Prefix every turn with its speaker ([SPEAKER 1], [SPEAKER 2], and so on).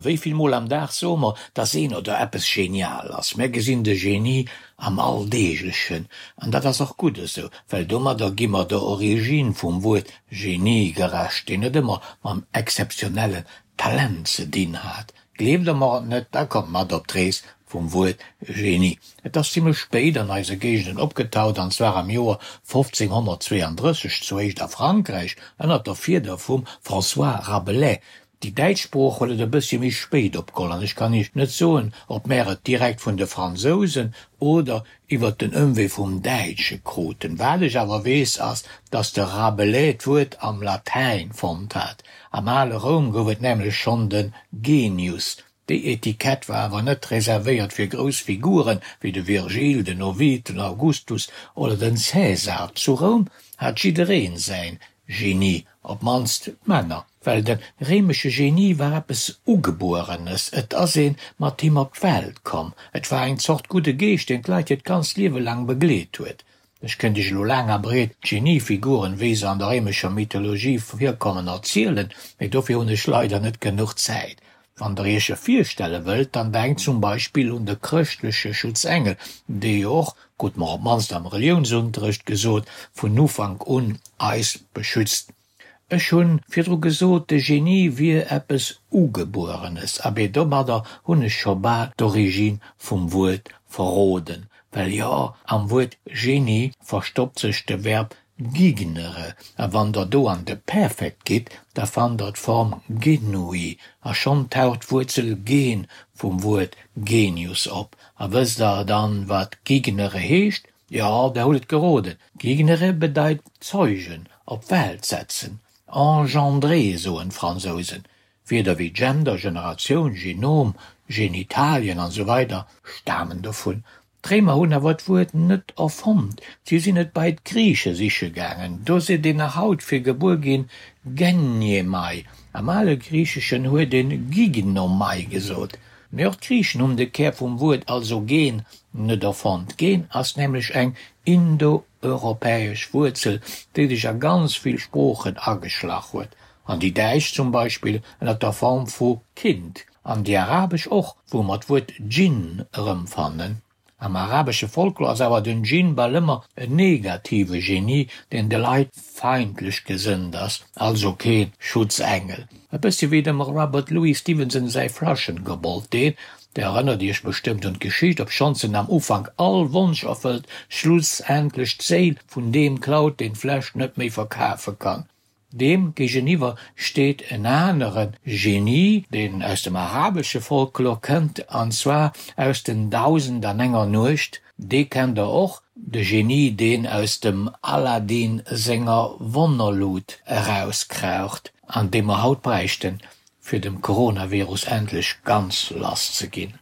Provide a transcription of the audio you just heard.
[SPEAKER 1] Wéi vill Mol am Dag soe mer, dass een oder eppes genial ass? Mär gesinn de Genie am Alldeeglechen. An dat ass och gutt esou, well domadder gi mer der Origine vum Wuert Genie gerecht, deen net ëmmer mam exzeptionellen Talent ze dinn hat. Gleeft der mer et net, da kommt mat op d'Rees vum Wuert Genie. Et ass zimlech spéit an eise Géigenden opgetaucht, an zwar am Joer 1532, zuéischt a Frankräich ënnert der Fieder vum François Rabelais. Déi däitsch Sprooch huet et e bëssche méi spéit opgeholl an ech kann Iech net soen, ob mär et direkt vun de Fransousen oder iwwert den Ëmwee vum Däitsche kruten. Wat ech awer weess ass, datt de Rabelais d'Wuert am Latäin fonnt hat. Am ale Roum gouf et nämlech schonn de Genius. Déi Etikett war awer net reservéiert fir grouss Figuren, wéi de Virgil, den Ovid, den Augustus oder den Cäsar. Zu Roum hat jiddereen säin Genie, op d'mannst d'Männer, well de réimesche Genie war eppes Ugebuerenes, et ass ee mat him op d'Welt komm, et war eng Zort gudde Geescht, deen d'Leit hiert ganzt Liewe laang begleet huet. Ech kéint iech elo laang a breet d'Geniefiguren, wéi se an der réimescher Mythologie virkommen, erzielen, mee dofir hunn ech leider net genuch Zäit. Wann der iech e virstelle wëllt, dann denkt zum Beispill un de chrëschtleche Schutzengel, dee jo och, krute mer op d'mannst am Reliounsunterrecht gesot, vun Ufank un eis beschützt. Ech hu virdru gesot, de Genie wier eppes Ugebuerenes, abee domadder hunn ech scho bal d'Origine vum Wuert verroden, well jo, am Wuert Genie verstoppt sech de Verb Gignere, a wann der do an de Perfekt gitt, da fannt der d'Form genui, a schonn taucht d'Wuerzel gen vum Wuert genius op. A wësst der dann, wat gignere heescht? Jo, der hutt et geroden, gignere bedeit zeugen, op d'Welt setzen, engendrer soen d'Fransousen. Wierder wéi Gender, Generatioun, Genom, Genitalien an esou weider stamen dovun. D'Réimer hunn awer d'Wuert net erfonnt, si sinn et bei d'Griiche siche gaangen. Do seet een nach haut fir gebuer ginn genniemai. Am ale Griicheschen huet een gignomai gesot. Mee och d'Griichen hunn de Kär vum Wuert, also gen, net erfonnt. Gen ass nämlech eng indoeuropäesch Wuerzel, déi sech a ganz vill Sproochen ageschlach huet. An déi däitsch zum Beispill ënner der Form vu Kind. An déi arabesch och, wou mer d'Wuert Djinn erëmfannen. Am arabesche Folklor ass awer den Djinn bal ëmmer en negative Genie, deen de Leit feindlech gesënnt ass, also kee Schutzengel. E bëssi wéi dem Robert Louis Stevenson säi Flaschenkobold, deen, der erënnert iech bestëmmt un d'Geschicht, obschonns en am Ufank all Wonsch erfëllt, schlussendlech d'Séil vun deem klaut, deen d'Fläsch net méi verkafe kann. Deem géigeniwwer steet en anere Genie, deen aus dem arabesche Folklor kënnt, an zwar aus den Dausend an enger Nuecht. Dee kennt der och, de Genie, deen aus dem Aladdin senger Wonnerlut erauskraucht, an dee mer haut bräichten, fir dem Coronavirus endlech ganz lass ze ginn.